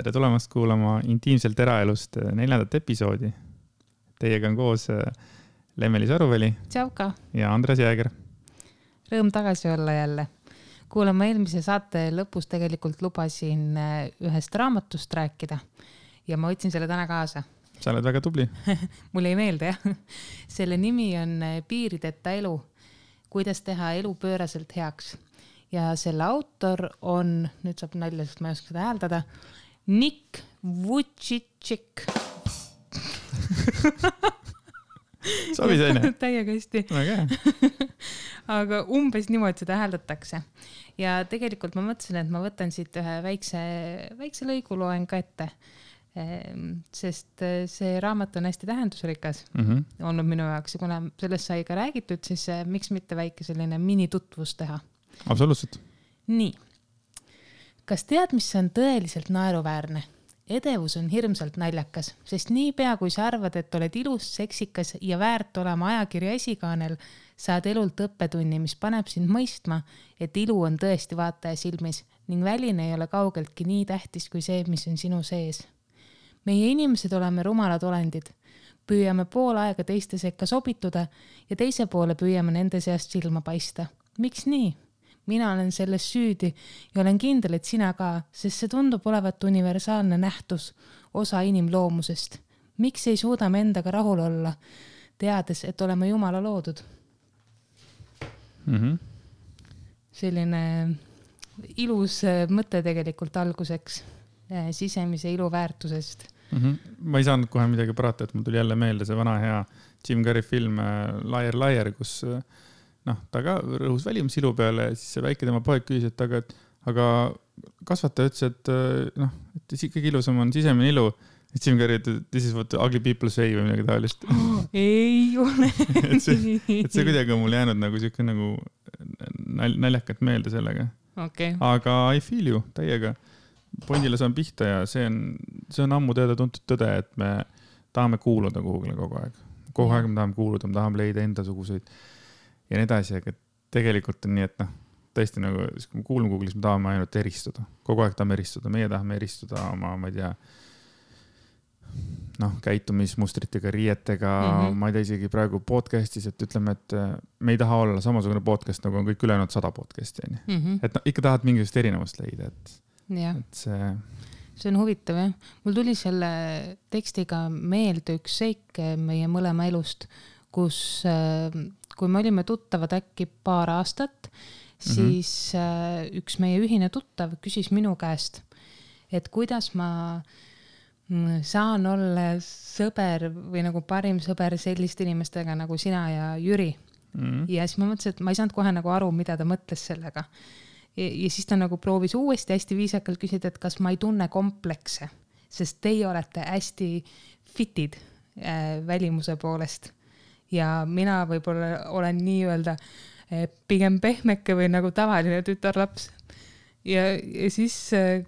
tere tulemast kuulama Intiimselt eraelust 4. episoodi. Teiega on koos Lemmeli Saruväli Tšauka. Ja Andres Jääger. Rõõm tagasi olla jälle. Kuulama eelmise saate lõpus tegelikult lubasin ühest raamatust rääkida ja ma võtsin selle täna kaasa. Sa oled väga tubli. Mul ei meelde, jah. Selle nimi on Piirideta elu. Kuidas teha elu pööraselt heaks. Ja selle autor on, nüüd saab nalja, sest ma ei oska seda hääldada, Nick Vujicic. Sobi saine? Täiega hästi. Aga umbes niimoodi seda hääldatakse. Ja tegelikult ma mõtlesin, et ma võtan siit ühe väikse lõigu loen ka ette. Sest see raamat on hästi tähendusrikas olnud minu jaoks ja kuna sellest sai ka räägitud, siis miks mitte väike selline minitutvus teha? Absoluutselt. Nii. Kas tead, mis on tõeliselt naeruväärne? Edevus on hirmsalt naljakas, sest niipea kui sa arvad, et oled ilus, seksikas ja väärt olema ajakirja esikaanel, saad elult õppetunni, mis paneb sind mõistma, et ilu on tõesti vaataja silmis ning väline ei ole kaugeltki nii tähtis kui see, mis on sinu sees. Meie inimesed oleme rumalad olendid. Püüame pool aega teiste sekka sobituda ja teise poole püüame nende seast silma paista. Miks nii? Mina olen selles süüdi ja olen kindel, et sina ka, sest see tundub olevat universaalne nähtus, osa inimloomusest. Miks ei suuda me endaga rahul olla, teades, et oleme Jumala loodud? Selline ilus mõte tegelikult alguseks sisemise ilu väärtusest. Ma ei saanud kohe midagi parata, et mul tuli jälle meelde see vana hea Jim Carrey film Liar, kus ta ka rõhus välimus ilu peale ja siis see väike tema poeg küsis, et aga kasvataja ütles, et kõige ilusam on sisemine ilu. Jim Carrey, this is what ugly people say või midagi taolist. Ei ole. et see kuidagi on mul jäänud nagu siuke nagu naljakat meelde sellega. Okay. Aga I feel you täiega. Pondile saan pihta ja see on ammu teada tuntud tõde, et me tahame kuuluda kuhugile kogu aeg. Kogu aeg me tahame kuuluda, me tahame leida enda suguseid ja nii edasi, aga tegelikult on nii, et tõesti nagu, kui me kuulame Google'is, me tahame ainult eristuda. Kogu aeg tahame eristuda. Meie tahame eristuda oma, ma ei tea, käitumismustritega, riietega, ma ei tea isegi praegu podcastis, et ütleme, et me ei taha olla samasugune podcast, nagu on kõik ülejäänud 100 podcasti. Et ikka tahad mingisugust erinevust leida, et see on huvitav, jah. Mul tuli selle tekstiga meelde üks seik meie mõlema elust, kus kui me olime tuttavad äkki paar aastat, siis üks meie ühine tuttav küsis minu käest, et kuidas ma saan olla sõber või nagu parim sõber selliste inimestega nagu sina ja Jüri. Ja siis ma mõtlesin, et ma ei saanud kohe nagu aru, mida ta mõtles sellega. Ja siis ta nagu proovis uuesti hästi viisakalt küsida, et kas ma ei tunne komplekse, sest teie olete hästi fitid välimuse poolest. Ja mina võib-olla olen nii-öelda pigem pehmeke või nagu tavaline tütarlaps. Ja siis,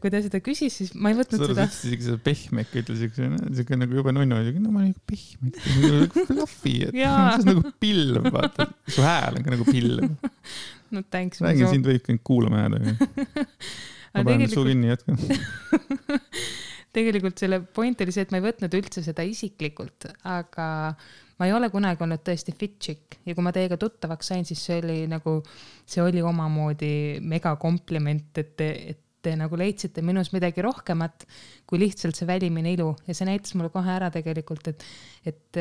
kui ta seda küsis, siis ma ei võtnud seda. Sa ütlesid seda pehmeke, ütlesid nagu juba nunnu, no ma olen nagu pehmeke, nagu fluffy, et see on nagu pilv, vaata. Su hääl on ka nagu pilv. No thanks. Räägin, sind võib kõik kuulama jääda. Ma panen suu kinni jätkan. Tegelikult selle point oli see, et ma ei võtnud üldse seda isiklikult, aga ma ei ole kunagi olnud tõesti fit chick ja kui ma teiega tuttavaks sain, siis see oli omamoodi mega kompliment, et te nagu leidsite minus midagi rohkemat kui lihtsalt see välimine ilu ja see näitas mulle kohe ära tegelikult, et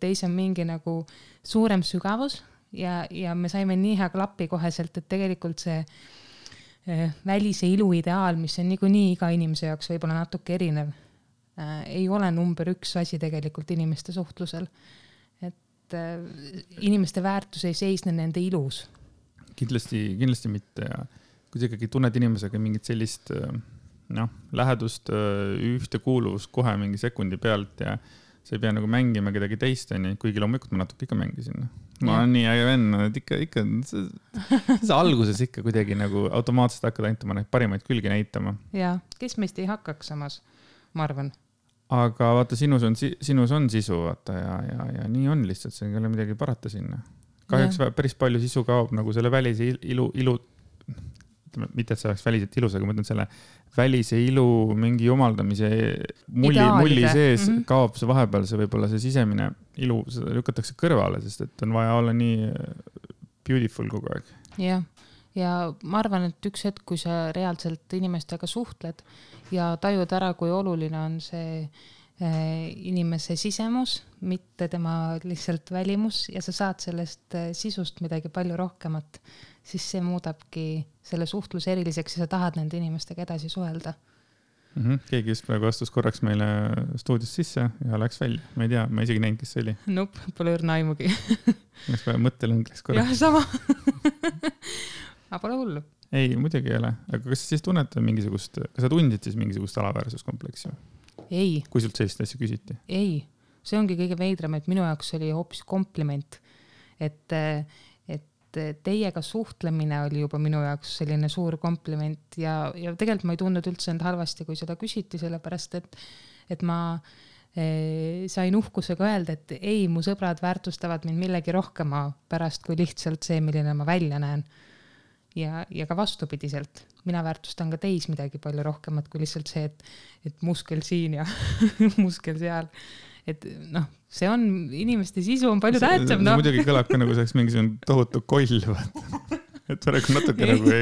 teis on mingi nagu suurem sügavus ja me saime nii hea klappi koheselt, et tegelikult see välise ilu ideaal, mis on nii iga inimese jaoks võib-olla natuke erinev, ei ole number 1 asi tegelikult inimeste suhtlusel. Et inimeste väärtus ei seisne nende ilus. Kindlasti mitte ja kui sa ikkagi tunned inimesega mingit sellist lähedust, ühtekuuluvust kohe mingi sekundi pealt ja sa ei pea nagu mängima kedagi teist, kuigi loomulikult ma natuke ikka mängisin. Ma olen nii äge venn, et ikka see alguses ikka kuidagi nagu automaatselt hakkad ainult oma parimaid külgi näitama. Ja, kes meist ei hakkaks samas, ma arvan. Aga vaata, sinus on sisu, vaata, ja nii on lihtsalt, see ei ole midagi parata sinna. Kahjuks päris palju sisu kaob nagu selle välise ilu mitte, et see oleks väliselt ilus, aga ma mõtlen selle välise ilu mingi jumaldamise mulli sees kaob see vahepeal, see võib-olla see sisemine ilu, seda lükatakse kõrvale, sest et on vaja olla nii beautiful kogu aeg. Jah, ja ma arvan, et üks hetk, kui sa reaalselt inimestega suhtled ja tajud ära, kui oluline on see inimese sisemus, mitte tema lihtsalt välimus ja sa saad sellest sisust midagi palju rohkemat, siis see muudabki selle suhtluse eriliseks ja sa tahad nende inimestega edasi suhelda. Keegi just praegu astus korraks meile stuudist sisse ja läks välja. Ma ei tea, ma isegi näinud, kes see oli. Nope, pole õrna aimugi. Läks kohe mõttelõng läks korraks. Jah, sama. Aga pole hullu. Ei, muidugi ei ole. Aga kas sa siis tunned mingisugust, kas sa tundid siis mingisugust alaväärsuskompleksi? Ei. Kui sult sellist asja küsiti? Ei. See ongi kõige veidram, et minu jaoks oli hoopis kompliment, et teiega suhtlemine oli juba minu jaoks selline suur kompliment ja tegelikult ma ei tundnud üldse end halvasti, kui seda küsiti, sellepärast et ma sain uhkusega öelda, et ei, mu sõbrad väärtustavad mind millegi rohkema pärast kui lihtsalt see, milline ma välja näen. Ja ka vastupidiselt. Mina väärtustan ka teis midagi palju rohkemat kui lihtsalt see, et muskel siin ja muskel seal. Et noh, see on, inimeste sisu on palju tähtsam. See muidugi kõlab ka nagu saaks mingisugune tohutu koll, et praegu natuke nagu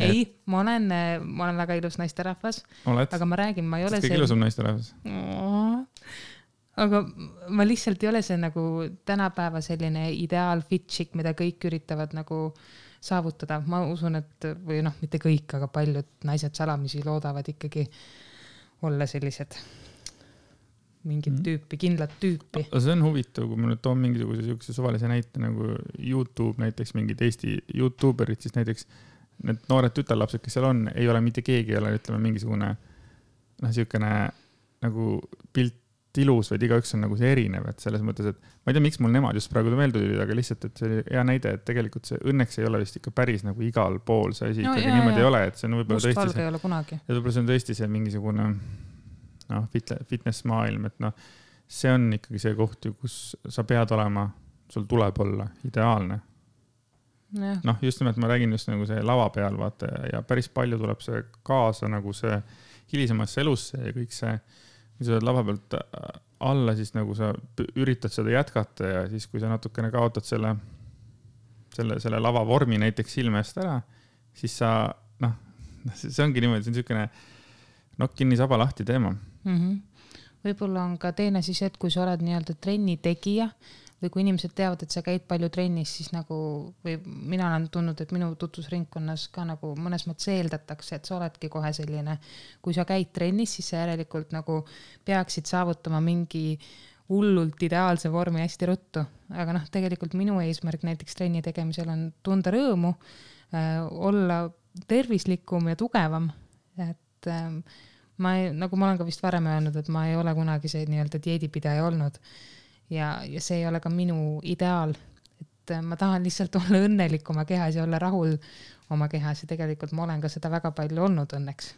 ei, ma olen väga ilus naisterahvas, aga ma räägin, ma ei ole see... Kõige ilusam naisterahvas. Aga ma lihtsalt ei ole see nagu tänapäeva selline ideaal fitchik, mida kõik üritavad nagu saavutada. Ma usun, et või noh, mitte kõik, aga paljud naised salamisi loodavad ikkagi olla sellised mingit tüüpi, kindlat tüüpi. See on huvitav, kui ma nüüd toon mingisuguse suvalise näite nagu YouTube, näiteks mingid Eesti YouTuberid, siis näiteks need noored tütarlapsed, kes seal on, ei ole mitte keegi, ei ole, ütleme, mingisugune siukene nagu pilt ilus, vaid igaüks on nagu see erinev, et selles mõttes, et ma ei tea, miks mul nemad just praegu meelde tulid, aga lihtsalt, et see oli hea näide, et tegelikult see õnneks ei ole vist ikka päris nagu igal pool see asi, ikkagi niimoodi ei ole, et see on võib-olla tõesti ei ole kunagi. Ja võib-olla see on tõesti see mingisugune fitness maailm, et see on ikkagi see koht, kus sa pead olema, sul tuleb olla ideaalne. Just nimelt ma räägin just nagu see lava peal, vaata, ja päris palju tuleb see kaasa nagu see hilisemasse elusse ja kõik see, kui sa oled lava pealt alla, siis nagu sa üritad seda jätkata ja siis, kui sa natukene kaotad selle lava vormi näiteks silme eest ära, siis sa, see ongi niimoodi, see on niisugune nokk kinni saba lahti teema. Võib-olla on ka teine siis, et kui sa oled nii-öelda trenni tegija või kui inimesed teavad, et sa käid palju trennis, siis nagu, või mina olen tundnud, et minu tutvusringkonnas ka nagu mõnes mõttes eeldatakse, et sa oledki kohe selline, kui sa käid trennis, siis sa järelikult nagu peaksid saavutama mingi hullult ideaalse vormi hästi ruttu. Aga tegelikult minu eesmärk näiteks trenni tegemisel on tunda rõõmu, olla tervislikum ja tugevam, et nagu ma olen ka vist varem öelnud, et ma ei ole kunagi see nii-öelda dieedipidaja olnud ja see ei ole ka minu ideaal, et ma tahan lihtsalt olla õnnelik oma kehas ja olla rahul oma kehas ja tegelikult ma olen ka seda väga palju olnud õnneks.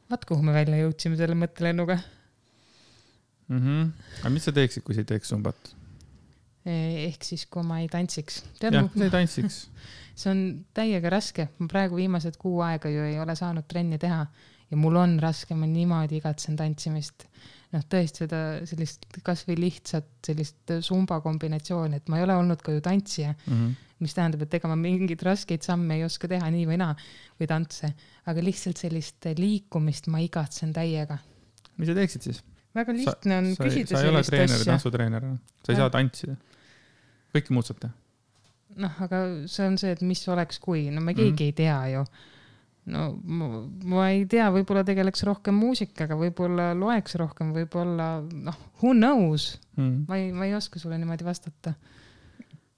Vaat kuhu me välja jõudsime selle mõttelennuga. Aga mis sa teeksid, kui sa ei teeks zumbat? Ehk siis, kui ma ei tantsiks. Jah, kui sa ei tantsiks. See on täiega raske. Ma praegu viimased 6 aega ju ei ole saanud trenni teha ja mul on raske, ma niimoodi igatsen tantsimist. Tõesti seda sellist kas või lihtsat sellist zumba kombinatsiooni, et ma ei ole olnud ka ju tantsija, mis tähendab, et ega ma mingid raskeid samme ei oska teha nii või naa või tantse, aga lihtsalt sellist liikumist ma igatsen täiega. Mis sa teeksid siis? Väga lihtne on küsida sellist asja. Sa ei ole treener, tantsutreener, sa ei saa tantsida. Kõike muud saab teha. Aga see on see, et mis oleks kui, me keegi ei tea ju. Ma ei tea, võib-olla tegeleks rohkem muusikaga, võib-olla loeks rohkem, võib-olla, who knows? Ma ei oska sulle niimoodi vastata.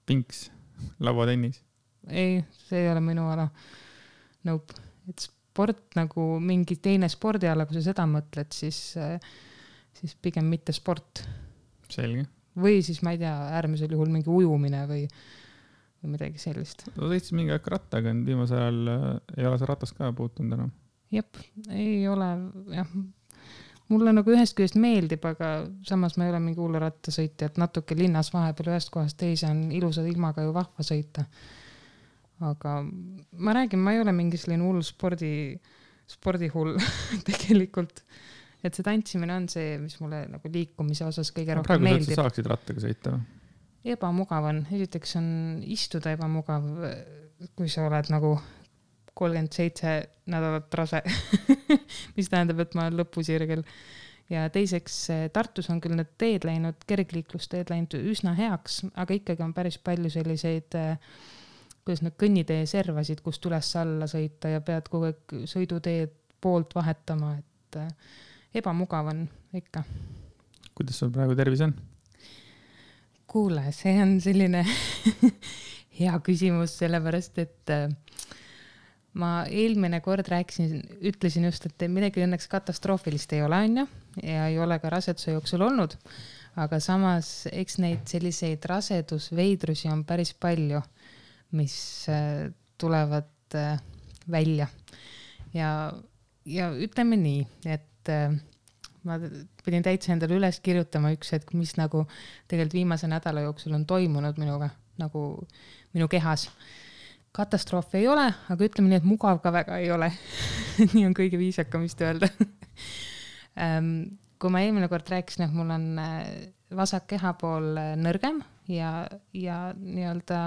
Pinks, lauatennis? Ei, see ei ole minu ala. Nope. Et sport nagu mingi teine spordiala, kui sa seda mõtled, siis pigem mitte sport. Selge. Või siis, ma ei tea, äärmisel juhul mingi ujumine või midagi sellist. Sa sõitsid mingi aeg rattaga, viimasel ajal ei ole see ratast ka puutunud enam? Jep, ei ole, jah. Mulle nagu ühest küljest meeldib, aga samas ma ei ole mingi hulle rattasõitja, et natuke linnas vahepeal ühest kohast teise on ilusa ilmaga ju vahva sõita. aga ma räägin, ma ei ole mingi selline hull spordihull tegelikult, et see tantsimine on see, mis mulle nagu liikumise osas kõige rohkem meeldib. Praegu sa saaksid rattaga sõita? Ebamugav on, esiteks on istuda ebamugav, kui sa oled nagu 37 nädalat rase, mis tähendab, et ma olen lõpusirgel. Ja teiseks Tartus on küll need teed läinud, kergliiklusteed läinud üsna heaks, aga ikkagi on päris palju selliseid, kuidas need kõnnitee servasid, kust üles alla sõita ja pead kogu aeg sõiduteed poolt vahetama, et ebamugav on ikka. Kuidas sul praegu tervis on? Kuule, see on selline hea küsimus, sellepärast, et ma eelmine kord ütlesin just, et midagi õnneks katastroofilist ei ole, on ju, ja ei ole ka raseduse jooksul olnud, aga samas eks neid selliseid rasedusveidrusi on päris palju, mis tulevad välja. Ja ütleme nii, et ma pidin täitsa endale üles kirjutama üks hetk, mis nagu tegelikult viimase nädala jooksul on toimunud minuga, nagu minu kehas. Katastroofi ei ole, aga ütleme nii, et mugav ka väga ei ole. Nii on kõige viisakam vist öelda. Kui ma eelmine kord rääkisin, et mul on vasak kehapool nõrgem ja nii-öelda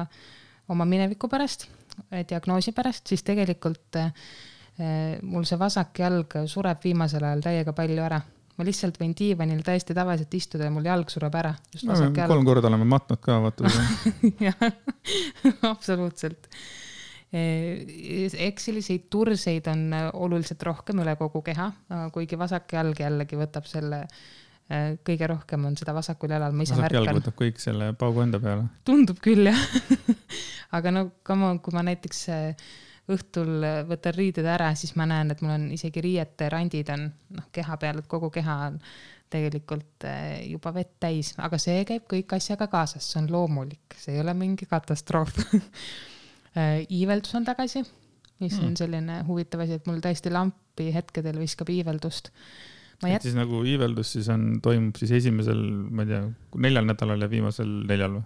oma mineviku pärast, diagnoosi pärast, siis tegelikult mul see vasak jalg sureb viimasel ajal täiega palju ära. Ma lihtsalt võin diivanil täiesti tavaliselt istuda ja mul jalg sureb ära. No, 3 korda oleme matnud ka, vaata. Jah, absoluutselt. Eks selliseid turseid on oluliselt rohkem üle kogu keha, kuigi vasak jalg jällegi võtab selle, kõige rohkem on seda vasakul jalal. Vasak jalg võtab kõik selle paugu enda peale. Tundub küll, jah. Aga no, kui ma näiteks õhtul võtan riided ära, siis ma näen, et mul on isegi riiete randid on keha peal, et kogu keha on tegelikult juba vett täis, aga see käib kõik asjaga kaasas, see on loomulik, see ei ole mingi katastroof. Iiveldus on tagasi, mis on selline huvitav asi, et mul täiesti lampi hetkedel viskab iiveldust. Siis nagu iiveldus siis toimub siis esimesel, ma ei tea, 4 nädalal ja viimasel 4 või?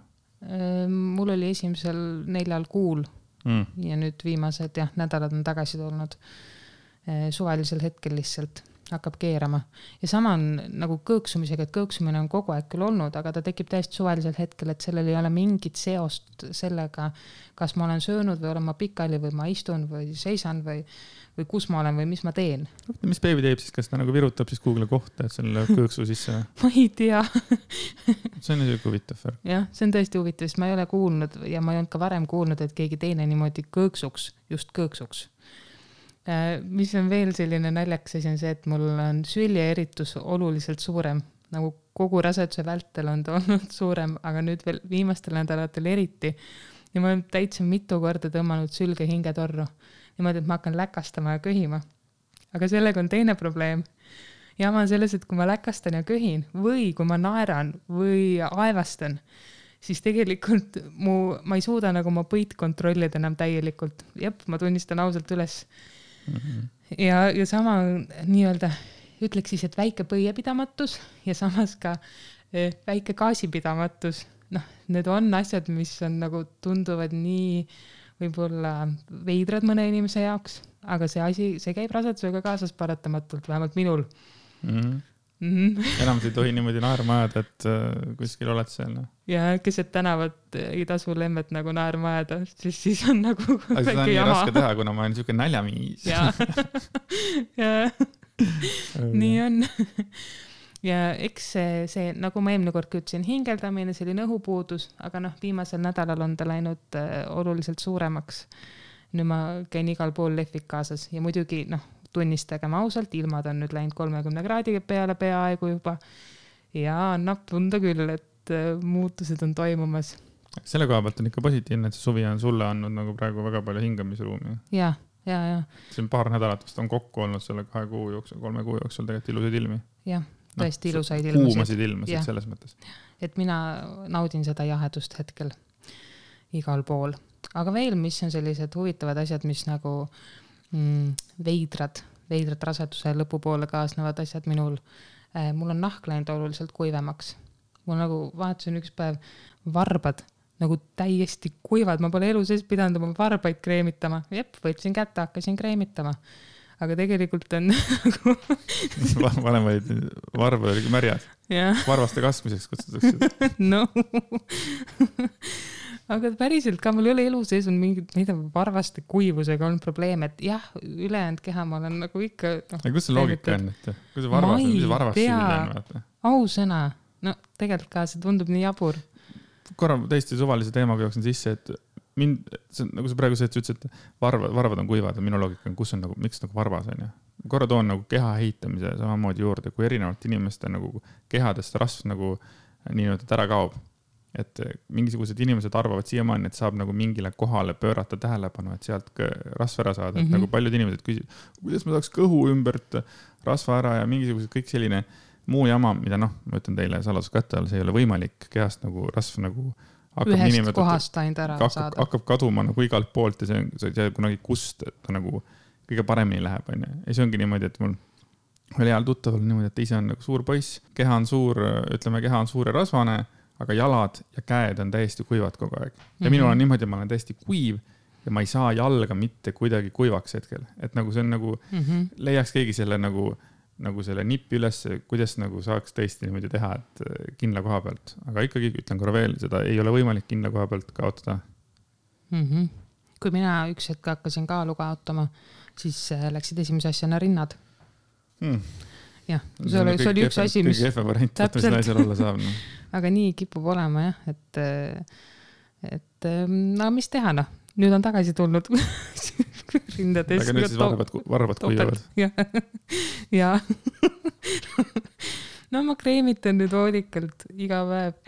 Mul oli esimesel 4 kuul. Ja nüüd viimased nädalad on tagasi tulnud suvalisel hetkel lihtsalt hakkab keerama. Ja sama on nagu kõõksumisega, et kõõksumine on kogu aeg küll olnud, aga ta tekib täiesti suvalisel hetkel, et sellel ei ole mingit seost sellega, kas ma olen söönud või olen ma pikali või ma istun või seisan või kus ma olen või mis ma teen. Mis beebi teeb siis, kas ta nagu virutab siis kuhugile kohta, et selle kõõksu sisse? Ma ei tea. See on niisugune huvitav. Jah, see on tõesti huvitav, sest ma ei ole kuulnud ja ma ei olnud ka varem kuulnud, et keegi teine niimoodi kõõksuks, just kõõksuks. Mis on veel selline naljakas asi on see, et mul on süljeeritus oluliselt suurem, nagu kogu raseduse vältel on ta olnud suurem, aga nüüd veel viimastel nädalatel eriti. Ja ma olen täitsa mitu korda tõmmanud sülge hingetorru. Niimoodi, et ma hakkan läkastama ja köhima. Aga sellega on teine probleem. Ja ma on selles, et kui ma läkastan ja köhin või kui ma naeran või aevastan, siis tegelikult ma ei suuda nagu ma põit kontrollida enam täielikult. Jep, ma tunnistan ausalt üles. Ja sama nii-öelda ütleks siis, et väike põiepidamatus ja samas ka väike gaasipidamatus. Need on asjad, mis on nagu tunduvad nii võib-olla veidrad mõne inimese jaoks, aga see käib rasedusega kaasas paratamatult, vähemalt minul. Enam ei tohi niimoodi naerma ajada, et kuskil oled seal. Ja keset tänavat ei tasu lemmet nagu naerma ajada, siis on nagu aga seda on nii raske teha, kuna ma olen niisugune näljamiis. Nii on. Ja eks see, nagu ma eelmine kord ütlesin, hingeldamine, selline õhupuudus, aga viimasel nädalal on ta läinud oluliselt suuremaks. Nüüd ma käin igal pool lehvik kaasas ja muidugi tunnistagem ausalt, ilmad on nüüd läinud 30 kraadi peale peaaegu juba ja annab tunda küll, et muutused on toimumas. Selle koha pealt on ikka positiivne, et see suvi on sulle andnud nagu praegu väga palju hingamisruumi. Ja. See on paar nädalat vast on kokku olnud selle 2 kuu jooksul, 3 kuu jooksul tegelikult ilusaid ilmi. Jah. Tõesti ilusaid ilmasid. Kuumasid ilmasid selles mõttes. Et mina naudin seda jahedust hetkel igal pool. Aga veel, mis on sellised huvitavad asjad, mis nagu veidrad raseduse lõpupoole kaasnevad asjad minul. Mul on nahk läinud oluliselt kuivemaks. Mul nagu vaatasin üks päev varbad nagu täiesti kuivad, ma pole elu sees pidanud oma varbaid kreemitama. Võtsin kätte, hakkasin kreemitama. Aga tegelikult on nagu... Vanem olid, varba oligi märjad. Varvaste kasvmiseks kutsutakse. No. Aga päriselt ka mul ei ole elu sees on mingid, varvaste kuivusega on probleem, et jah, ülejäänud keha ma olen nagu ikka... Aga kus see loogika on, et kus see varvas süüline on? Ausõna. No tegelikult ka see tundub nii jabur. Korra täiesti suvalise teemaga jooksin sisse, et nagu sa praegu ütlesid, et varvad on kuivad ja minu loogika on, kus on nagu, miks nagu varvas on. Korra toon nagu keha ehitamise samamoodi juurde, kui erinevalt inimeste nagu kehadest rasv nagu nii-öelda ära kaob. Et mingisugused inimesed arvavad siiamaani, et saab nagu mingile kohale pöörata tähelepanu, et sealt rasva ära saada. Et nagu paljud inimesed küsivad, kuidas ma saaks kõhu ümbert rasva ära ja mingisugused kõik selline muu jama, mida ma ütlen teile saladuskatte all, see ei ole võimalik kehast nagu rasv nagu ühest kohast ainult ära saada. Hakkab kaduma nagu igalt poolt ja see on kunagi kust, et ta nagu kõige paremini läheb. Ja see ongi niimoodi, et mul oli heal tuttaval niimoodi, et ise on nagu suur poiss, keha on suur ja rasvane, aga jalad ja käed on täiesti kuivad kogu aeg. Ja minul on niimoodi, ma olen täiesti kuiv ja ma ei saa jalga mitte kuidagi kuivaks hetkel. Et nagu see on nagu, leiaks keegi selle nagu selle nippi üles, kuidas nagu saaks tõesti niimoodi teha, et kindla koha pealt. Aga ikkagi ütlen korra veel, seda ei ole võimalik kindla koha pealt kaotada. Kui mina üks hetk hakkasin kaalu kaotama, siis läksid esimese asjana rinnad. Jah, see oli üks asi, mis... Kõige effe variant, et mis naisel olla saab. No. Aga nii kipub olema, jah, et mis teha, nüüd on tagasi tulnud rindades. Aga nüüd siis varvad kuivavad. Ja. No ma kreemitan nüüd hoolikalt iga päev.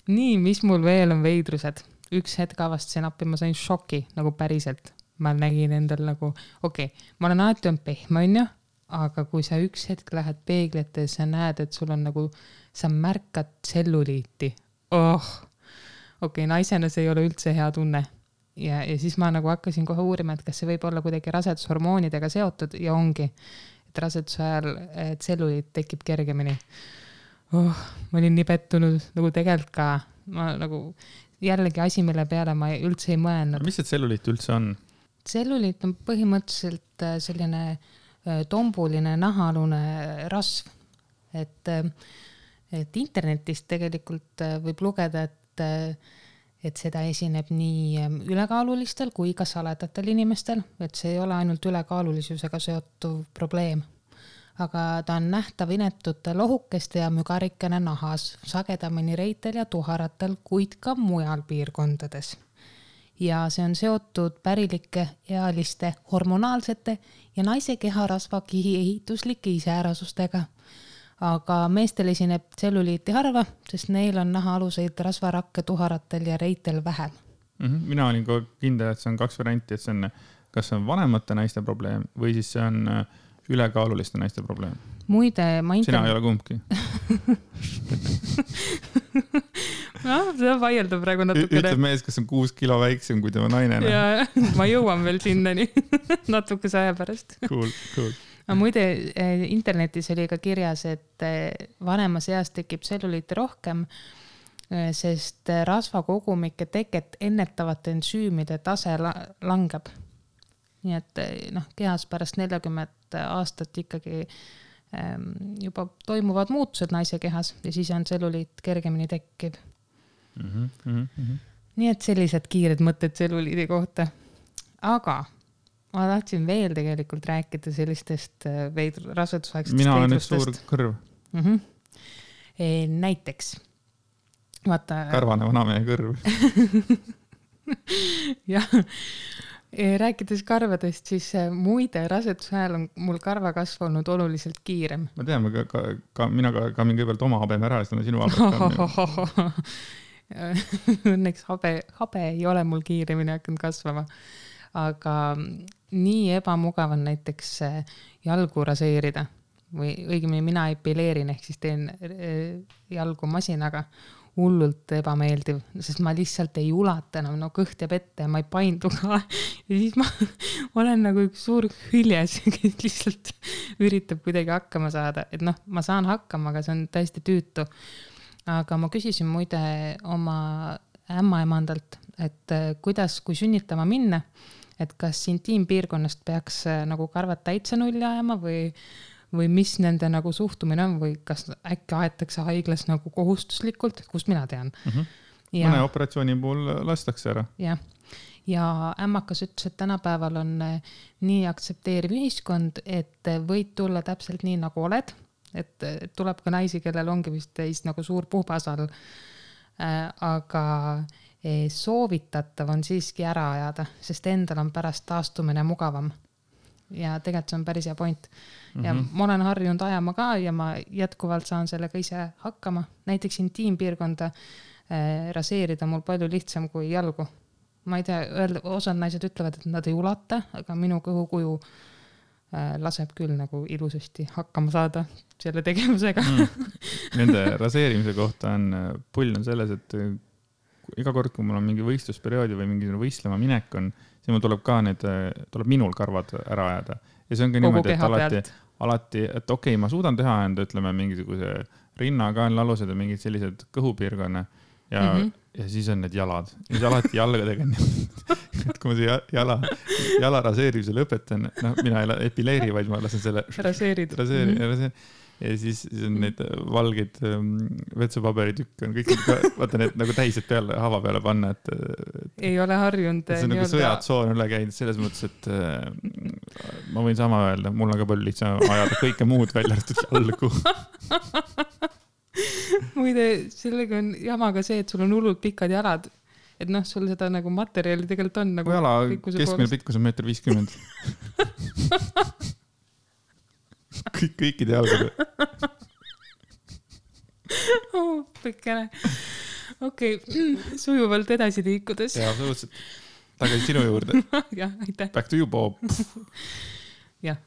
Nii, mis mul veel on veidrused? Üks hetk avastasin appi, ma sain šoki nagu päriselt. Ma nägin endal nagu, ma olen alati on pehme, on ju, aga kui sa üks hetk lähed peeglite ja sa näed, et sul on nagu, sa märkad tselluliiti. Naisena see ei ole üldse hea tunne. Ja siis ma nagu hakkasin kohe uurima, et kas see võib olla kuidagi rasedushormoonidega seotud ja ongi, et raseduse ajal tselluliit tekib kergemini. Ma olin nii pettunud, nagu tegelikult ka, ma nagu jällegi asi, mille peale ma üldse ei mõelnud. Mis see tselluliit üldse on? Tselluliit on põhimõtteliselt selline tombuline nahaalune rasv, et internetist tegelikult võib lugeda, et seda esineb nii ülekaalulistel kui ka saledatel inimestel, et see ei ole ainult ülekaalulisusega seotuv probleem. Aga ta on nähtav inetute lohukeste ja mügarikene nahas, sagedamini reitel ja tuharatel, kuid ka mujal piirkondades. Ja see on seotud pärilike, ealiste, hormonaalsete ja naise keharasva kihi ehituslike iseärasustega. Aga meestel esineb tselluliiti harva, sest neil on nahaaluseid rasvarakke tuharatel ja reitel vähem. Mina olin ka kindel, et see on 2 varianti, et see on, kas see on vanemate naiste probleem või siis see on ülekaaluliste naiste probleem. Muide, Sina ei ole kumbki. See vaieldab praegu natukene. Ütleb mees, kes on 6 kilo väiksem kui tema naine. Ja, ma jõuan veel sinnani natukese aja pärast. Cool. Aga muide, internetis oli ka kirjas, et vanemas eas tekib tselluliiti rohkem, sest rasvakogumike teket ennetavate ensüümide tase langeb. Nii et kehas pärast 40 aastat ikkagi juba toimuvad muutused naise kehas ja siis on tselluliit kergemini tekkiv. Nii et sellised kiired mõtted tselluliidi kohta. Aga ma tahtsin veel tegelikult rääkida sellistest rasedusaegsetest Mina olen üks suur kõrv. Näiteks. Vaata... Karvane vanamehe kõrv. Jah. Rääkides karvadest, siis muide raseduse ajal on mul karvakasv olnud oluliselt kiirem. Ma tean, mina ka mingi kõigepealt oma habeme ära, siis on sinu habet. Õnneks habe ei ole mul kiiremini hakanud kasvama. Aga nii ebamugav on näiteks jalgu raseerida või õigemini mina epileerin ehk siis teen jalgu masinaga hullult ebameeldiv, sest ma lihtsalt ei ulata enam, kõht jääb ette ja ma ei paindu ka ja siis ma olen nagu üks suur hüljes, kes lihtsalt üritab kuidagi hakkama saada, et ma saan hakkama, aga see on täiesti tüütu. Aga ma küsisin muide oma ämmaemandalt, et kuidas, kui sünnitama minna, et kas intiimpiirkonnast peaks nagu karvad täitsa nulli ajama või mis nende nagu suhtumine on või kas äkki aetakse haiglas nagu kohustuslikult, kust mina tean. Mõne operatsiooni puhul lastakse ära. Ja ämmakas ütles, et tänapäeval on nii aktsepteeriv ühiskond, et võid tulla täpselt nii nagu oled, et tuleb ka naisi, kellel ongi vist teist nagu suur puhpasal, aga soovitatav on siiski ära ajada, sest endal on pärast taastumine mugavam. Ja tegelikult see on päris hea point. Ja ma olen harjunud ajama ka ja ma jätkuvalt saan sellega ise hakkama. Näiteks intiimpiirkonda raseerida mul palju lihtsam kui jalgu. Ma ei tea, osad naised ütlevad, et nad ei ulata, aga minu kõhukuju laseb küll nagu ilusasti hakkama saada selle tegevusega. Nende raseerimise kohta on pull on selles, et iga kord, kui mul on mingi võistlusperioodi või mingi võistlema minek on, siis mul tuleb minul karvad ära ajada. Ja see on ka niimoodi, et alati, et okei, ma suudan teha enda, ütleme, mingisuguse rinna, kaenlalused ja mingid sellised kõhupiirkonna ja siis on need jalad. Ja siis alati jalgadega et kui ma see jala raseerimise lõpetan, mina ei epileeri, vaid ma lasen selle raseerid. Ja siis on neid valgeid vetsupaberitükk on kõik, vaata need nagu täised peale, hava peale panna, et ei ole harjunud. See on nagu sõjatsoon üle käinud selles mõttes, et ma võin sama öelda, mul on ka palju lihtsam ajada kõike muud välja arvatud jalgu. Muide, sellega on jamaga see, et sul on hullult pikad jalad. Et sul seda nagu materjali tegelikult on nagu jala keskmine pikkus on 1,50 m. Kõikide jalgade. Pikkene. Okei, sujuvalt edasi liikudes. Ja, absoluutselt. Tagasi sinu juurde. Jah, aitäh. Back to you, Bob. Jah.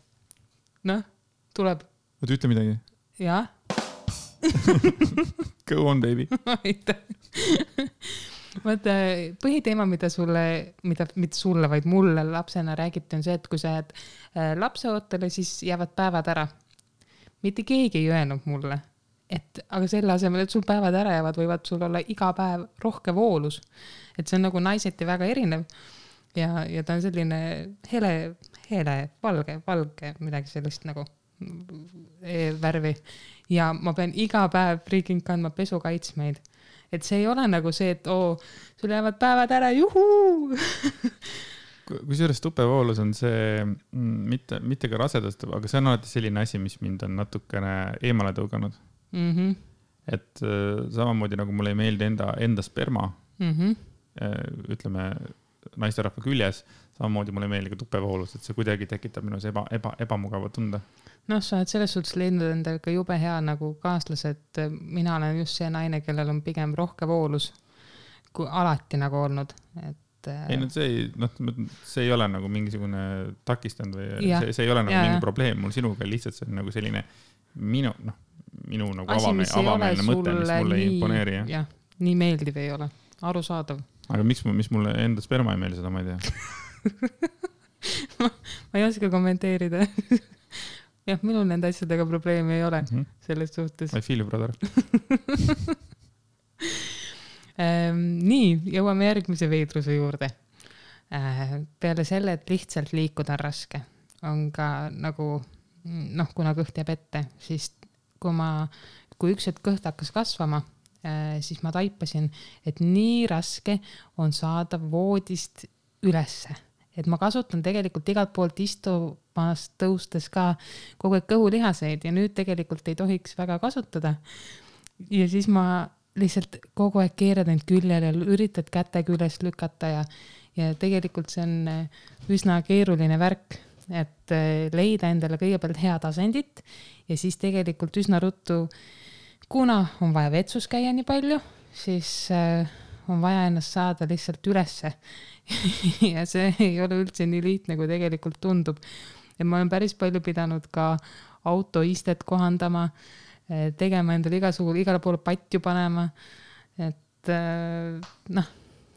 Tuleb. Võid ütle midagi? Jah. Go on, baby. Aitäh. Vaata, põhiteema, mida sulle, vaid mulle lapsena räägiti, on see, et kui sa jääd lapseootele, siis jäävad päevad ära. Mitte keegi ei öelnud mulle, aga selle asemel, et sul päevad ära jäävad, võivad sul olla iga päev rohke voolus. Et see on nagu naiseti väga erinev ja ta on selline hele, valge, midagi sellist nagu värvi. Ja ma pean iga päev freaking kandma pesukaitsmeid. Et see ei ole nagu see, et sul jäävad päevad ära, juhuu! Kui sellest tupevoolus on see mitte ka rasedast, aga see on alati selline asi, mis mind on natukene eemale tõuganud. Et samamoodi nagu mulle ei meeldi enda sperma, ütleme naisterahva küljes, samamoodi mulle ei meeldi ka tupevoolus, et see kuidagi tekitab minus ebamugava tunda. Sa oled selles suhtes leidnud endal ka jube hea nagu kaaslased. Mina olen just see naine, kellel on pigem rohke voolus kui alati nagu olnud. Ei, see ei ole nagu mingisugune takistanud või see ei ole nagu mingi probleem. Mul sinuga lihtsalt see on nagu selline minu nagu avameelne mõte, mis mulle ei imponeeri. Jah, nii meeldiv ei ole. Arusaadav. Aga mis mulle enda sperma ei meeldi, seda ma ei tea. ma ei oska kommenteerida. Jah, minul nende asjadega probleemi ei ole selles suhtes. I feel you, brother. Nii, jõuame järgmise veidruse juurde. Peale selle, et lihtsalt liikuda on raske, on ka nagu, kuna kõht jääb ette, siis kui üks hetk kõht hakkas kasvama, siis ma taipasin, et nii raske on saada voodist ülesse. Et ma kasutan tegelikult igalt poolt istumast tõustes ka kogu aeg kõhulihaseid ja nüüd tegelikult ei tohiks väga kasutada. Ja siis ma lihtsalt kogu aeg keerad end küljel ja üritad käte küljest lükata ja tegelikult see on üsna keeruline värk, et leida endale kõigepealt head asendit ja siis tegelikult üsna ruttu, kuna on vaja vetsus käia nii palju, siis on vaja ennast saada lihtsalt ülesse. Ja see ei ole üldse nii lihtne, kui tegelikult tundub. Ja ma olen päris palju pidanud ka autoistet kohandama, tegema endale igale poole patju panema. Et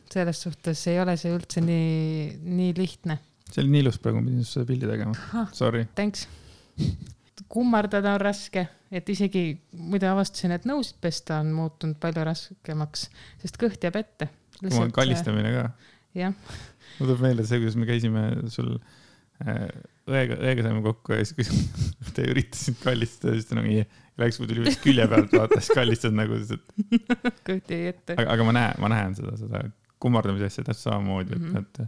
selles suhtes ei ole see üldse nii lihtne. See oli nii ilus praegu, ma pidin seda pildi tegema. Sorry. Thanks. Kummardada on raske, et isegi muide avastasin, et nõusid pesta on muutunud palju raskemaks, sest kõht jääb ette. kallistamine ka. jah. Mul tuleb meelde see, kuidas me käisime sul õega saime kokku ja siis, kui te üritasid kallistada, siis ta nagu läks, kui tuli vist külje pealt vaata, siis kallistad nagu. Kõhti ei ette. Aga ma näen seda kummardamise asja täpselt samamoodi, et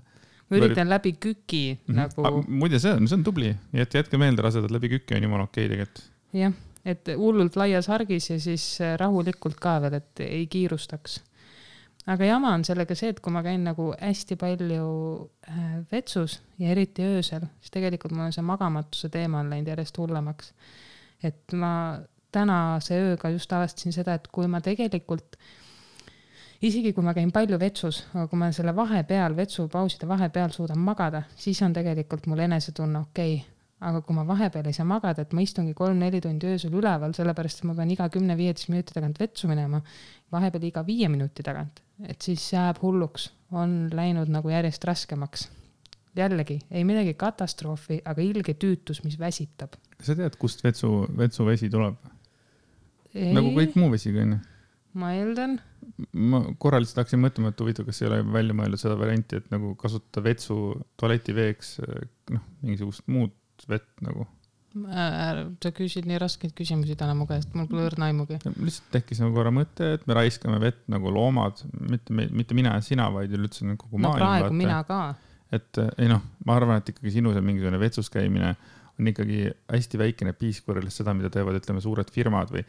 ma üritan läbi küki nagu. Muide, see on tubli, jätke meelde rasedad läbi küki on jumala okei tegelikult. Jah, et hullult laias hargis ja siis rahulikult ka veel, et ei kiirustaks. Aga jama on sellega see, et kui ma käin nagu hästi palju vetsus ja eriti öösel, siis tegelikult mul on see magamatuse teema on läinud järjest hullemaks. Et ma tänase ööga just avastasin seda, et kui ma tegelikult, isegi kui ma käin palju vetsus, aga kui ma selle vahepeal, vetsupauside vahepeal suudan magada, siis on tegelikult mul enesetunne okei. Aga kui ma vahepeal ei saa magada, et ma istungi 3-4 tundi öösel üleval, sellepärast, et ma pean iga 10-15 minuti tagant vetsu minema, vahepeal iga 5 minuti tagant, et siis jääb hulluks, on läinud nagu järjest raskemaks. Jällegi, ei midagi katastroofi, aga ilge tüütus, mis väsitab. Sa tead, kust vetsuvesi tuleb? Nagu kõik muu vesi, kui on? Ma eeldan. Ma korraliselt hakkasin mõtlema, et huvitav, kas ei ole välja mõeldud seda varianti, et nagu kasutada vetsu tualetiveeks mingisugust muud vett nagu. Sa küsid nii raskeid küsimusi täna mu käest, mul pole õrna aimugi. Lihtsalt tekkis nagu korra mõte, et me raiskame vett nagu loomad, mitte mina ja sina, vaid üldse kogu maailm. No praegu mina ka. Et ma arvan, et ikkagi sinu see mingisugune vetsus käimine on ikkagi hästi väikene piisk võrreldes seda, mida teevad, ütleme, suured firmad või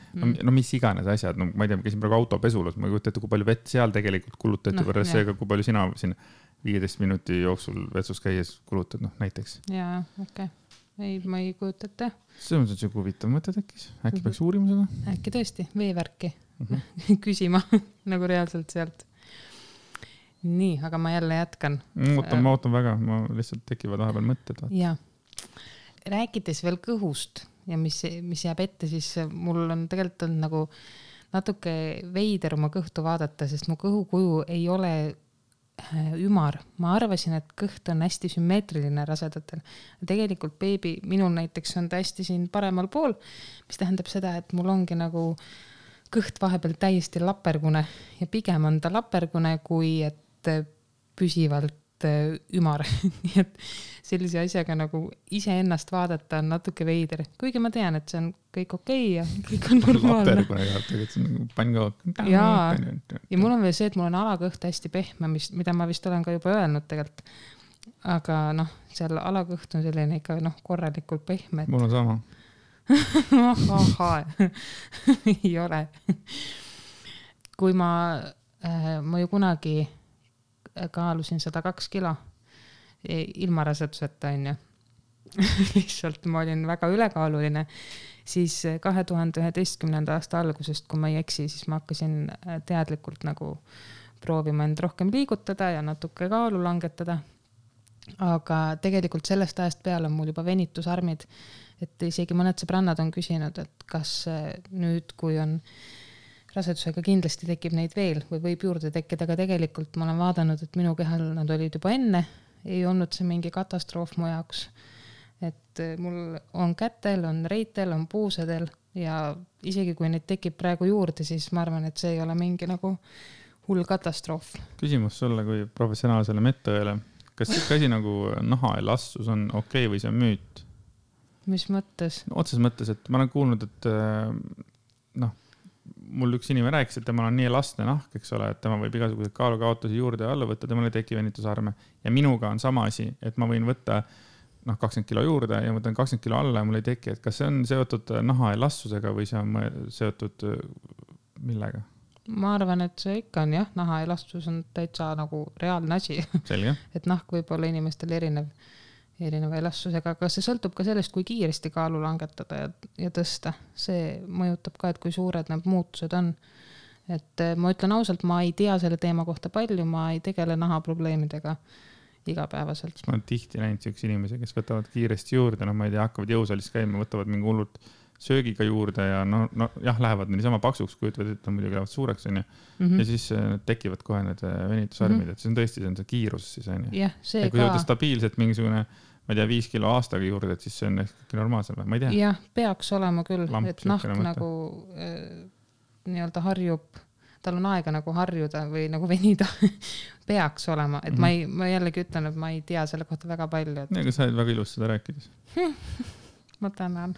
mis iganes asjad. No, ma ei tea, ma käisin praegu autopesulas, ma ei kujuta ette, kui palju vett seal tegelikult kulutati võrreldes seega, kui palju sina siin 15 minuti jooksul vetsus käies kulutad, näiteks. Jaa, okei. Ei, ma ei kujuta ette. See on see huvitav mõte tekkis. Äkki peaks uurima seda? Äkki tõesti, veevärki küsima nagu reaalselt sealt. Nii, aga ma jälle jätkan. Ma ootan väga, ma lihtsalt tekivad vahepeal mõtted. Jaa. Rääkides veel kõhust ja mis jääb ette, siis mul on tegelikult nagu natuke veider oma kõhtu vaadata, sest mu kõhukuju ei ole ümar. Ma arvasin, et kõht on hästi sümmeetriline rasedatel. Tegelikult beebi, minul näiteks on ta hästi siin paremal pool, mis tähendab seda, et mul ongi nagu kõht vahepeal täiesti lapergune ja pigem on ta lapergune, kui et püsivalt ümar. Nii et sellise asjaga nagu iseennast vaadata on natuke veider. Kuigi ma tean, et see on kõik okei ja kõik on normaalne. Lapergune tegelikult, see on pannkook. Ja mul on veel see, et mul on alakõht hästi pehme, mida ma vist olen ka juba öelnud tegelikult. Aga seal alakõht on selline ikka korralikult pehme. Mul on sama. Ei ole. Kui ma ju kunagi kaalusin 102 kilo ilma raseduseta on ju. Lihtsalt ma olin väga ülekaaluline. Siis 2011. aasta algusest, kui ma ei eksi, siis ma hakkasin teadlikult nagu proovima end rohkem liigutada ja natuke kaalu langetada. Aga tegelikult sellest ajast peale on mul juba venitusarmid, et isegi mõned sõbrannad on küsinud, et kas nüüd, kui on rasedusega kindlasti tekib neid veel või võib juurde tekkida, aga tegelikult ma olen vaadanud, et minu kehal nad olid juba enne, ei olnud see mingi katastroof mu jaoks. Et mul on kätel, on reitel, on puusedel ja isegi kui neid tekib praegu juurde, siis ma arvan, et see ei ole mingi nagu hull katastroof. Küsimus sulle kui professionaalsele medõele. Kas see asi nagu nahaelastsus on okei või see on müüt? Mis mõttes? Otses mõttes, et ma olen kuulnud, et mul üks inimene rääkis, et temal on nii elastne nahk, eks ole, et tema võib igasugused kaalukaotusi juurde ja alla võtta, temal ei teki venitusarme. Ja minuga on sama asi, et ma võin võtta 20 kilo juurde ja võtan 20 kilo alla ja mul ei teki. Et kas see on seotud nahaelastsusega või see on seotud millega? Ma arvan, et see ikka on jah, nahaelastus on täitsa nagu reaalne asi. Selge. Et nahk võib olla inimestel erineva elastsusega, aga see sõltub ka sellest, kui kiiresti kaalu langetada ja tõsta. See mõjutab ka, et kui suured need muutused on. Et ma ütlen ausalt, ma ei tea selle teema kohta palju, ma ei tegele nahaprobleemidega igapäevaselt. Ma olen tihti näinud üks inimesi, kes võtavad kiiresti juurde, ma ei tea, hakkavad jõusalist käima, võtavad mingi hullult söögiga juurde ja jah, lähevad niisama paksuks, kui ütlevad, et on muidugi lähevad suureks. Ja siis tekivad kohe need venitusarmid, et see on tõesti see kiirus. Siis, jah, see ja kui võtta stabiilselt mingisugune, ma ei tea, 5 kilo aastaga juurde, et siis see on ehk normaalsem, ma ei tea. Jah, peaks olema küll, et nahk nagu nii-öelda harjub tal on aega nagu harjuda või nagu venida peaks olema, et ma jällegi ütlen, et ma ei tea selle kohta väga palju. Et... Aga sa oled väga ilus seda rääkides. Ma tänan.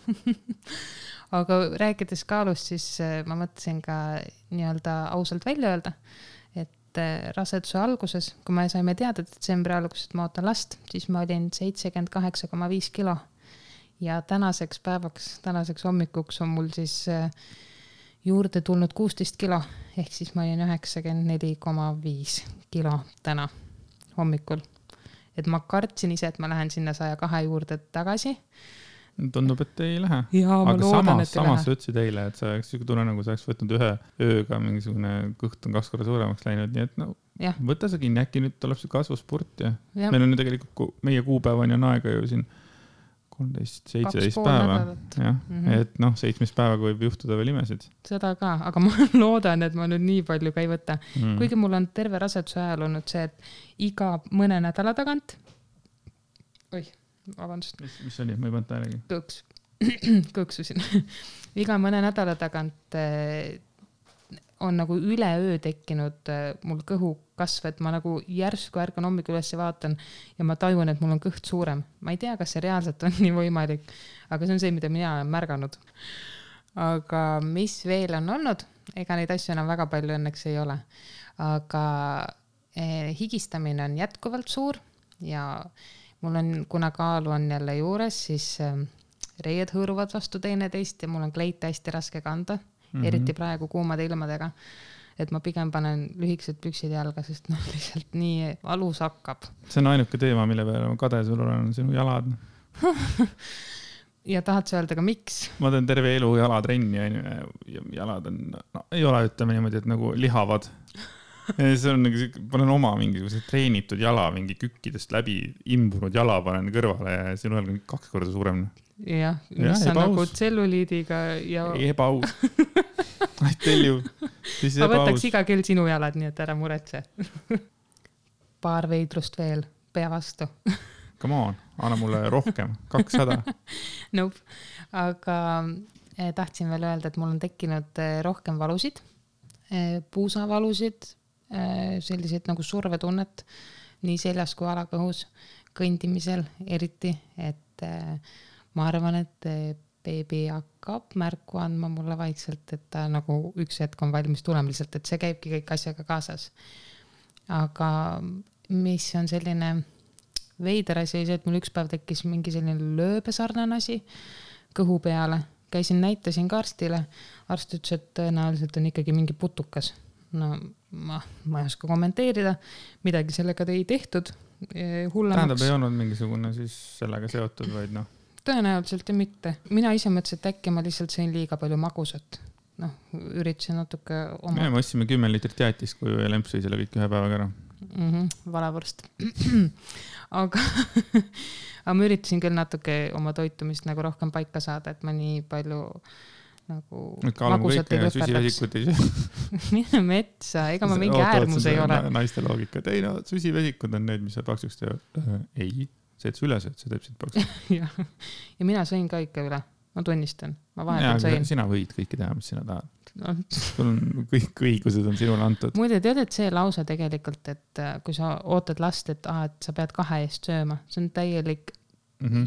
Aga rääkides kaalust, siis ma mõtlesin ka nii-öelda ausalt välja öelda, et raseduse alguses, kui me saime teada detsembri alguses, et ma ootan last, siis ma olin 78,5 kilo. Ja tänaseks päevaks, tänaseks hommikuks on mul siis juurde tulnud 16 kilo, ehk siis ma olin 94,5 kilo täna hommikul. Et ma kartsin ise, et ma lähen sinna 102 juurde tagasi. Tundub, et ei lähe. Ja, aga samas sa ütlesid eile, et sa oleks tunne, nagu sa oleks võtnud ühe ööga mingisugune kõht on 2 korda suuremaks läinud, nii et no, võta sa kinni, äkki nüüd tuleb see kasvuspurt ja meil on ju tegelikult meie kuupäevani on aega ju siin 13-17 päeva. Jah, et noh, 7 päevaga võib juhtuda veel imesid. Seda ka, aga ma loodan, et ma nüüd nii palju ka ei võta. Kuigi mul on terve raseduse ajal olnud see, et iga mõne nädala tagant vabandust. Mis oli? Ma ei pannud tähelegi. Kõksusin. Iga mõne nädala tagant on nagu üleöö tekkinud mul kõhu kasv, et ma nagu järsku ärkan hommikul üles ja vaatan ja ma tajun, et mul on kõht suurem. Ma ei tea, kas see reaalselt on nii võimalik, aga see on see, mida mina olen märganud. Aga mis veel on olnud? Ega neid asju enam väga palju õnneks ei ole. Aga higistamine on jätkuvalt suur ja mul on, kuna kaalu on jälle juures, siis reied hõõruvad vastu teineteist ja mul on kleite hästi raske kanda. Eriti praegu kuumade ilmadega, et ma pigem panen lühikesed püksid jalga, sest noh, lihtsalt nii valus hakkab. See on ainuke teema, mille peale ma kade sul olen, sinu jalad. Ja tahad sa öelda ka miks? Ma teen terve elu jalatrenni ja jalad on, no, ei ole ütleme niimoodi, et nagu lihavad. Ja see on nagu, panen oma mingisuguse treenitud jala, mingi kükkidest läbi imbunud jala panen kõrvale ja siin olen 2 korda suurem. Jah, mis on nagu tselluliidiga ja... Ebaus. I tell you. Ma võtaks iga kell sinu jalad, nii et ära muretse. Paar veidrust veel, pea vastu. Come on, anna mulle rohkem, 200. Nope. Aga tahtsin veel öelda, et mul on tekkinud rohkem valusid, puusavalusid, selliseid nagu survetunnet, nii seljas kui alakõhus, kõndimisel eriti, et ma arvan, et beebi hakkab märku andma mulle vaikselt, et ta nagu üks hetk on valmis tulema lihtsalt, et see käibki kõik asjaga kaasas. Aga mis on selline veider asi, et mul üks päev tekkis mingi selline lööbesarnane asi kõhu peale. Käisin, näitasin ka arstile. Arst ütles, et tõenäoliselt on ikkagi mingi putukas. No ma ei oska kommenteerida. Midagi sellega ei tehtud. Tähendab, ei olnud mingisugune siis sellega seotud, vaid noh. Tõenäoliselt ja mitte. Mina ise mõtlesin, et äkki ma lihtsalt sõin liiga palju magusat. Noh, üritasin natuke oma... Me ostsime 10 liitrit jäätist, kui lemp sõi selle kõik ühe päevaga ära. Valavorst. Aga ma üritasin küll natuke oma toitumist nagu rohkem paika saada, et ma nii palju nagu magusat ei lõpetaks. Mine metsa, ega ma mingi äärmus ei ole. Naiste loogika. Ei no, süsivesikud on need, mis sa paksuks teevad. Ei. See, et üles, et see teeb siit paksu. Ja mina sõin ka ikka üle. Ma tunnistan. Ma vahetult sõin. Sina võid kõiki teha, mis sina tahad. Sul on kõik õigused on sinule antud. Muide, tead, et see lause tegelikult, et kui sa ootad last, et sa pead 2 eest sööma, see on täielik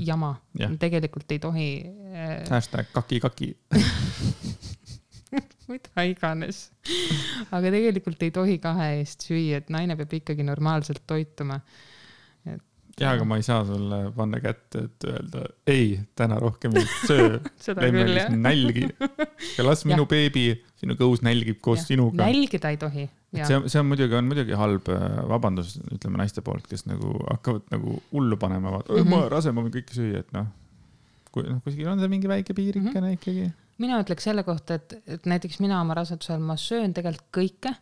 jama. Tegelikult ei tohi... Hashtag kaki. Mida iganes. Aga tegelikult ei tohi 2 eest süüa, et naine peab ikkagi normaalselt toituma. Ja, aga ma ei saa sulle panna kätte, et öelda, ei, täna rohkem ei söö. Läime nälgi. Ja las minu beebi, sinu kõus nälgib koos sinuga. Nälgida ei tohi. See on muidugi halb vabandus, ütleme naiste poolt, kes nagu hakkavad nagu hullu panema. Ma rase, ma võin kõike süüa, et noh, kuskil on see mingi väike piirikene ikkagi. Mina ütleks selle kohta, et näiteks mina oma rasedusel ma söön tegelikult kõike,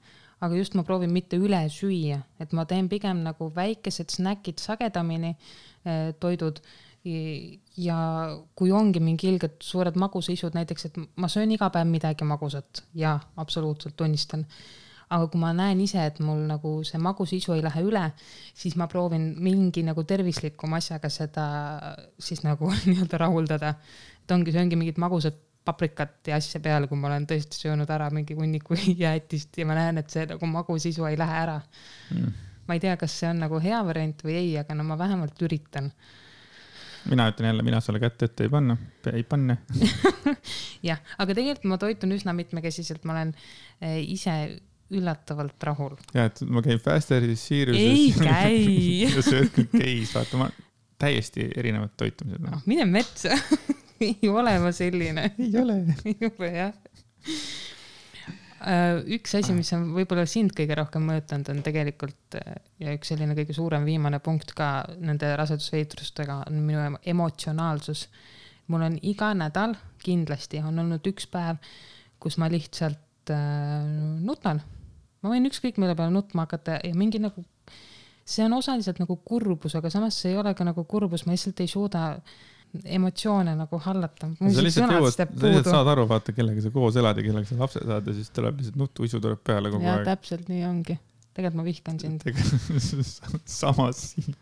aga just ma proovin mitte üle süüa, et ma teen pigem nagu väikesed snäkid sagedamini toidud ja kui ongi mingi ilged suured magusaisud näiteks, et ma söön iga päev midagi magusat ja absoluutselt tunnistan. Aga kui ma näen ise, et mul nagu see magusisu ei lähe üle, siis ma proovin mingi nagu tervislikum asjaga seda siis nagu nii-öelda rahuldada. Et ongi mingid magusad paprikat ja asja peale, kui ma olen tõesti söönud ära mingi hunniku jäätist ja ma näen, et see nagu magusisu ei lähe ära. Ma ei tea, kas see on nagu hea variant või ei, aga no ma vähemalt üritan. Mina ütlen jälle, mina sulle kätte ette ei panne. jah, aga tegelikult ma toitun üsna mitmekesiselt, ma olen ise üllatavalt rahul. Ja, et ma käin Fasteris, Siiruses. Ei käi. ja sööd kõik käis, vaata, ma täiesti erinevad toitumised. No, mine metsa. ei ole ma selline. Ei ole. ei ole, jah. Üks asi, mis on võib-olla sind kõige rohkem mõjutanud, on tegelikult ja üks selline kõige suurem viimane punkt ka nende rasedusveitrustega on minu emotsionaalsus. Mul on iga nädal kindlasti on olnud üks päev, kus ma lihtsalt nutan. Ma võin ükskõik mille peale nutma hakata ja mingi nagu, see on osaliselt nagu kurbus, aga samas see ei ole ka nagu kurbus, ma lihtsalt ei suuda emotsioone nagu hallata. Sa lihtsalt saad aru, vaata, kellega sa koos elad ja kellega sa lapse saad ja siis tuleb lihtsalt nutuisu tuleb peale kogu aeg. Ja täpselt nii ongi. Tegelikult ma vihkan sind. Samas siin.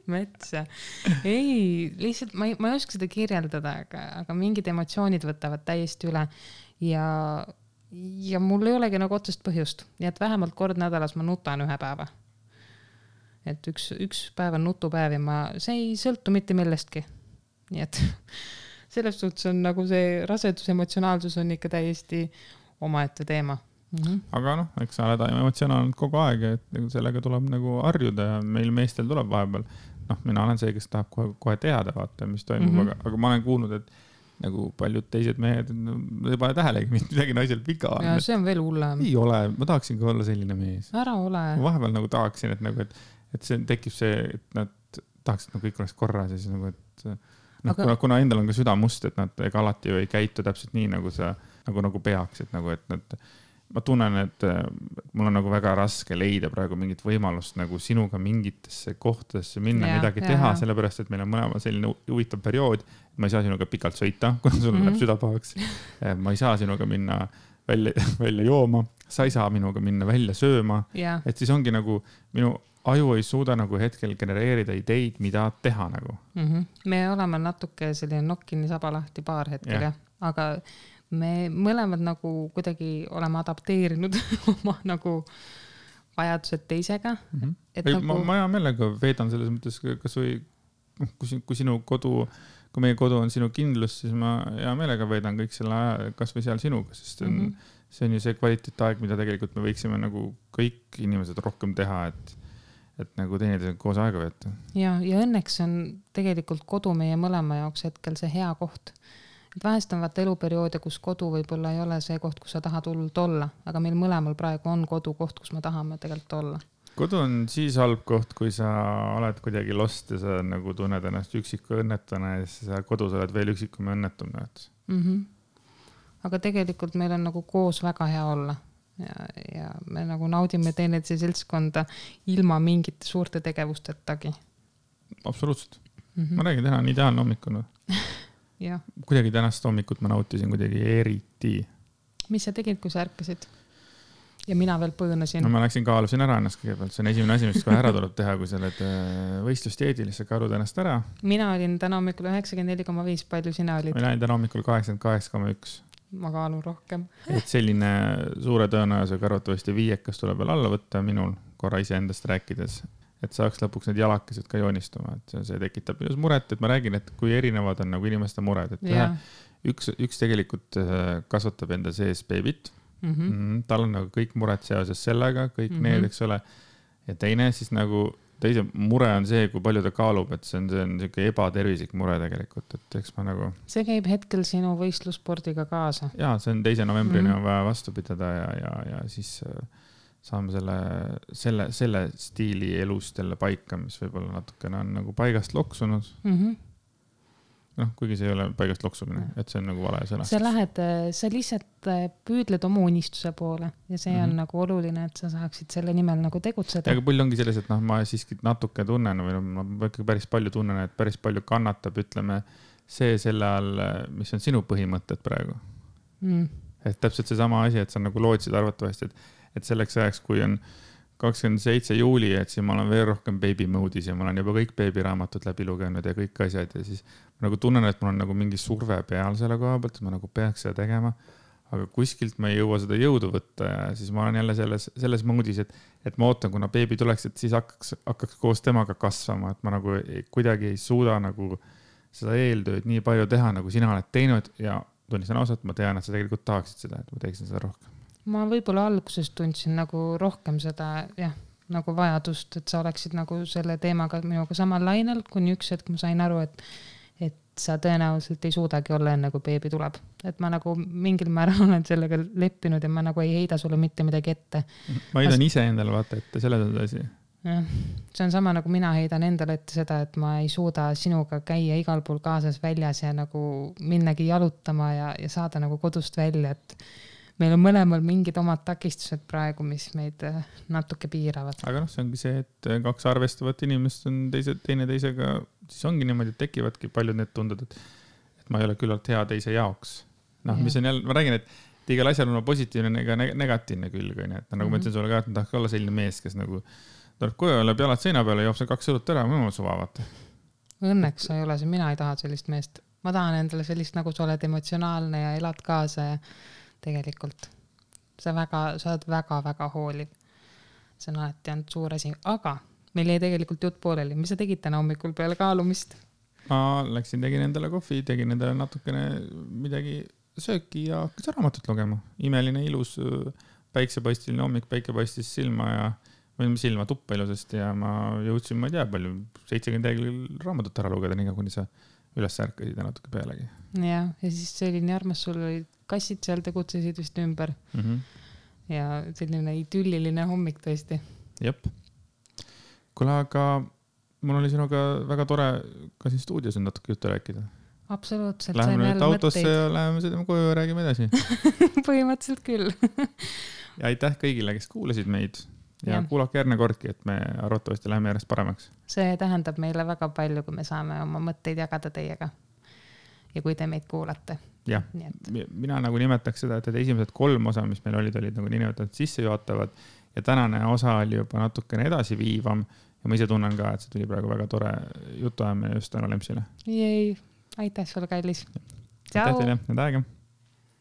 Metsa. Ei, lihtsalt ma ei oska seda kirjeldada, aga mingid emotsioonid võtavad täiesti üle ja mul ei olegi nagu otsest põhjust. Ja et vähemalt kord nädalas ma nutan ühe päeva. Et üks päev on nutupäev ja see ei sõltu mitte millestki. Nii et selles suhtes on nagu see rasedus emotsionaalsus on ikka täiesti omaette teema. Aga noh, eks sa oled emotsionaalnud kogu aeg, et sellega tuleb nagu harjuda ja meil meestel tuleb vahepeal. Noh, mina olen see, kes tahab kohe teada vaata, mis toimub, aga ma olen kuulnud, et nagu paljud teised mehed ei pane tähelegi midagi naisel viga. Ja see on veel hullem. Ei ole, ma tahaksin ka olla selline mees. Ära ole. Ma vahepeal nagu tahaksin, et see tekib see, et nad tahaksid nagu kõik oleks korras ja siis nagu, et kuna endal on ka süda must, et nad ega alati ju ei käitu täpselt nii, nagu sa nagu peaks, et nagu, et nad, ma tunnen, et mul on nagu väga raske leida praegu mingit võimalust nagu sinuga mingitesse kohtadesse minna, midagi teha, sellepärast, et meil on mõlema selline huvitav periood. Ma ei saa sinuga pikalt sõita, kuna sul läheb süda pahaks. Ma ei saa sinuga minna välja jooma, sa ei saa minuga minna välja sööma. Et siis ongi nagu minu aju ei suuda nagu hetkel genereerida ideid, mida teha nagu. Me oleme natuke selline nokkini saba lahti paar hetkel, aga me mõlemad nagu kuidagi oleme adapteerinud oma nagu vajadused teisega. Ma hea meelega veedan selles mõttes, kas või kui sinu kodu, kui meie kodu on sinu kindlus, siis ma hea meelega veedan kõik selle aja, kas või seal sinuga, sest see on ju see kvaliteetaeg, mida tegelikult me võiksime nagu kõik inimesed rohkem teha, et nagu teineteisega koos aega veeta. Ja õnneks on tegelikult kodu meie mõlema jaoks hetkel see hea koht. Et vahest on vaata eluperioode, kus kodu võib-olla ei ole see koht, kus sa tahad hullult olla, aga meil mõlemal praegu on kodu koht, kus me tahame tegelikult olla. Kodu on siis halb koht, kui sa oled kuidagi lost ja sa nagu tunned ennast üksiku õnnetuna ja siis sa kodus oled veel üksikum ja õnnetum. Aga tegelikult meil on nagu koos väga hea olla. Ja me nagu naudime teineteise seltskonda ilma mingite suurte tegevustetagi. Absoluutselt. Ma räägin, täna on ideaalne hommikuna. Kuidagi tänast hommikut ma nautisin kuidagi eriti. Mis sa tegid, kui sa ärkasid? Ja mina veel põõnasin. No ma läksin kaalusin ära ennast kõigepealt. See on esimene asi, mis kohe ära tuleb teha, kui sa oled võistlusteedil, sa kaalud ennast ära. Mina olin täna hommikul 94,5, palju sina olid? Mina olin täna hommikul 88,1. Ma kaalun rohkem. Et selline suure tõenäosusega arvatavasti viiekas tuleb veel alla võtta minul korra ise endast rääkides, et saaks lõpuks need jalakesed ka joonistuma, et see tekitab just muret, et ma räägin, et kui erinevad on nagu inimeste mured, et üks tegelikult kasvatab enda sees beebit, tal on nagu kõik mured seoses sellega, kõik need, eks ole, ja teine siis nagu teise mure on see, kui palju ta kaalub, et see on selline ebatervislik mure tegelikult, et eks ma nagu... See käib hetkel sinu võistlusspordiga kaasa. Jaa, see on 2. novembrini on vaja vastu pidada ja siis saame selle stiili elust jälle paika, mis võib-olla natukene on nagu paigast loksunud. Kuigi see ei ole paigast loksumine, et see on nagu vale sõna. Sa lihtsalt püüdled oma unistuse poole ja see on nagu oluline, et sa saaksid selle nimel nagu tegutseda. Aga pull ongi selles, et ma siiski natuke tunnen või ma päris palju tunnen, et päris palju kannatab, ütleme, see selle all, mis on sinu põhimõtted praegu. Et täpselt see sama asi, et sa nagu lootsid arvatavasti, et selleks ajaks, kui on 27 juuli, et siis ma olen veel rohkem baby mode'is ja ma olen juba kõik beebiraamatud läbi lugenud ja kõik asjad ja siis ma nagu tunnen, et mul on nagu mingi surve peal selle koha pealt, et ma nagu peaks seda tegema, aga kuskilt ma ei jõua seda jõudu võtta ja siis ma olen jälle selles moodis, et ma ootan, kuna beebi tuleks, et siis hakkaks koos temaga kasvama, et ma nagu kuidagi ei suuda nagu seda eeltööd nii palju teha, nagu sina oled teinud ja tunnistan ausalt, ma tean, et sa tegelikult tahaksid seda, et ma teeksin seda rohkem. Ma võib-olla alguses tundsin nagu rohkem seda, jah, nagu vajadust, et sa oleksid nagu selle teemaga minuga samal lainel, kuni üks hetk ma sain aru, et sa tõenäoliselt ei suudagi olla enne, kui beebi tuleb. Et ma nagu mingil määral olen sellega leppinud ja ma nagu ei heida sulle mitte midagi ette. Ma heidan ise endale vaata ette, selles on asi. jah, see on sama nagu mina heidan endale ette seda, et ma ei suuda sinuga käia igal pool kaasas väljas ja nagu minnagi jalutama ja saada nagu kodust välja, et meil on mõlemal mingid omad takistused praegu, mis meid natuke piiravad. Aga noh, see ongi see, et kaks arvestavat inimest on teine teisega, siis ongi niimoodi, et tekivadki paljud need tunded, et ma ei ole küllalt hea teise jaoks. Noh, mis on jälle, ma räägin, et igal asjal on positiivne ega negatiivne külg, et nagu ma ütlen sulle ka, et ma tahaks olla selline mees, kes nagu tuleb koju, läheb jalad seina peale, joob see 2 õlut ära, ma suva vaata. Õnneks sa ei ole see, mina ei taha sellist meest. Ma tahan endale sellist, nagu sa oled emotsionaalne ja elad kaasa ja tegelikult sa oled väga-väga hooliv. See on alati olnud suur asi, aga meil jäi tegelikult jutt pooleli. Mis sa tegid täna hommikul peale kaalumist? Ma läksin, tegin endale kohvi, tegin endale natukene midagi sööki ja hakkas raamatut lugema. Imeline, ilus, päiksepaistiline hommik, päike paistis silma ja silma tuppa ilusasti ja ma jõudsin, ma ei tea palju, 70 lehekülge raamatut ära lugeda, nii kuni sa üles ärkasid ja natuke pealegi. Ja siis see oli nii armas, sul olid kassid seal, tegutsesid vist ümber. Ja selline idülliline hommik tõesti. Jep. Kuule, aga mul oli sinuga väga tore ka siin stuudios on natuke juttu rääkida. Absoluutselt. Läheme nüüd autosse ja läheme sõidame koju ja räägime edasi. Põhimõtteliselt küll. Ja aitäh kõigile, kes kuulasid meid. Ja kuulake järgne kordki, et me arvatavasti läheme järjest paremaks. See tähendab meile väga palju, kui me saame oma mõtteid jagada teiega. Ja kui te meid kuulate. Jah, mina nagu nimetaks seda, et esimesed 3 osa, mis meil olid nagu niinimetatud sissejuhatavad ja tänane osa oli juba natukene edasi viivam ja ma ise tunnen ka, et see tuli praegu väga tore jutuajamine just tänu Lempsile. Jej, aitäh sulle, kallis. Aitäh teile, need aega.